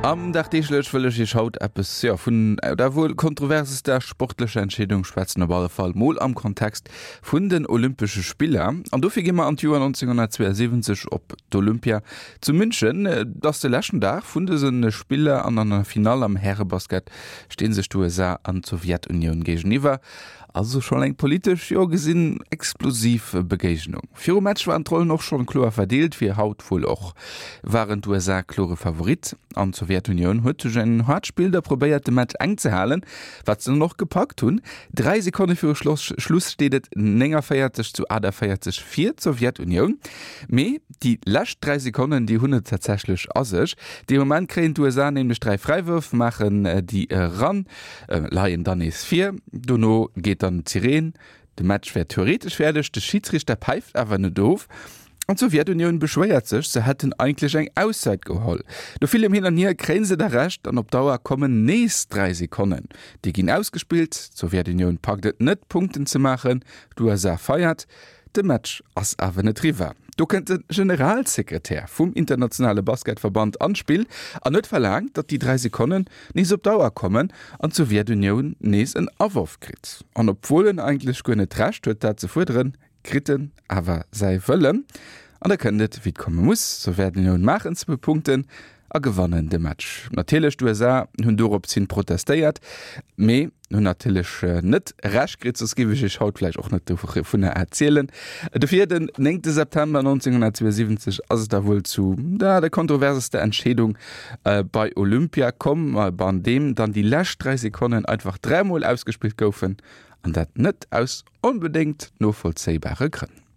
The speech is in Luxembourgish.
Am Dagdeeglech wëll ech Iech haut eppes, jo, vun der wuel kontroversester sportlecher Entscheedung schwätzen, op alle Fall mol am Kontext vun den Olympesche Spiller. An dofir gi mer an d'Joer 1972 op d'Olympia zu München. Et ass de leschten Dag vun dëse Spiller an an der Finall am Härebasket sti sech d'USA an d'Sowjetunioun géigeniwwer. Also schonn eng politesch, jo gesinn, explosiv Begéignung. Virum Match waren d'Rollen och schonn kloer verdeelt, wéi haut wuel och waren d'USA klore Favorit an d'Sowjetunioun huet duerch en haart Spill da probéiert de Match enk ze halen, wat se dann och gepackt hunn. 3 Sekonne viru Schluss steet et 49 zu 48 fir d'Sowjetunioun, mee déi lescht 3 Sekonnen déi hunn et tatsächlech a sech. Dee Moment kréien d'USA nämlech 3 Fräiwërf, maachen déi eran. Leien dann nees vir. Dono geet dann d'Sireen. De Match wär theoretesch fäerdeg, de Schidsriichter päift awer net of an d'Sowjetunioun beschwéiert sech, se hätten eigentlech eng Auszäit geholl. No villem Hin an Hier kréien se da Recht an op Dauer kommen nees 3 Sekonnen. Déi ginn ausgespillt, d'Sowjetunioun packt et net Punkten ze maachen, d'USA feiert. De Match ass awer net riwwer. Do kënnt de Generalsekretär vum internationale Basketverband an d'Spill an huet verlaangt, datt déi 3 Sekonnen nees op d'Auer kommen an d'Sowjetunioun nees en Aworf kritt. An obwuel en eigentlech guer net d'Recht huet dat ze fuerderen, kritt en awer säi Wëllen. An da kënnt et wéi et komme muss, D'Sowjetunioun maachen zwou Punkten a gewannen de Match. Natierlech, d'USA hunn dorops hin protestéiert, mee hunn natierlech net Recht kritt, soss géif ech iech haut vläicht och net dovunner erzielen. Dofir, den 9 September 1972 ass et da wuel zu der kontroversester Entscheedung bei Olympia komm, an deem dann déi lescht 3 Sekonnen einfach dräimol ausgespillt goufen, an dat net aus onbedéngt novollzéibare Grënn.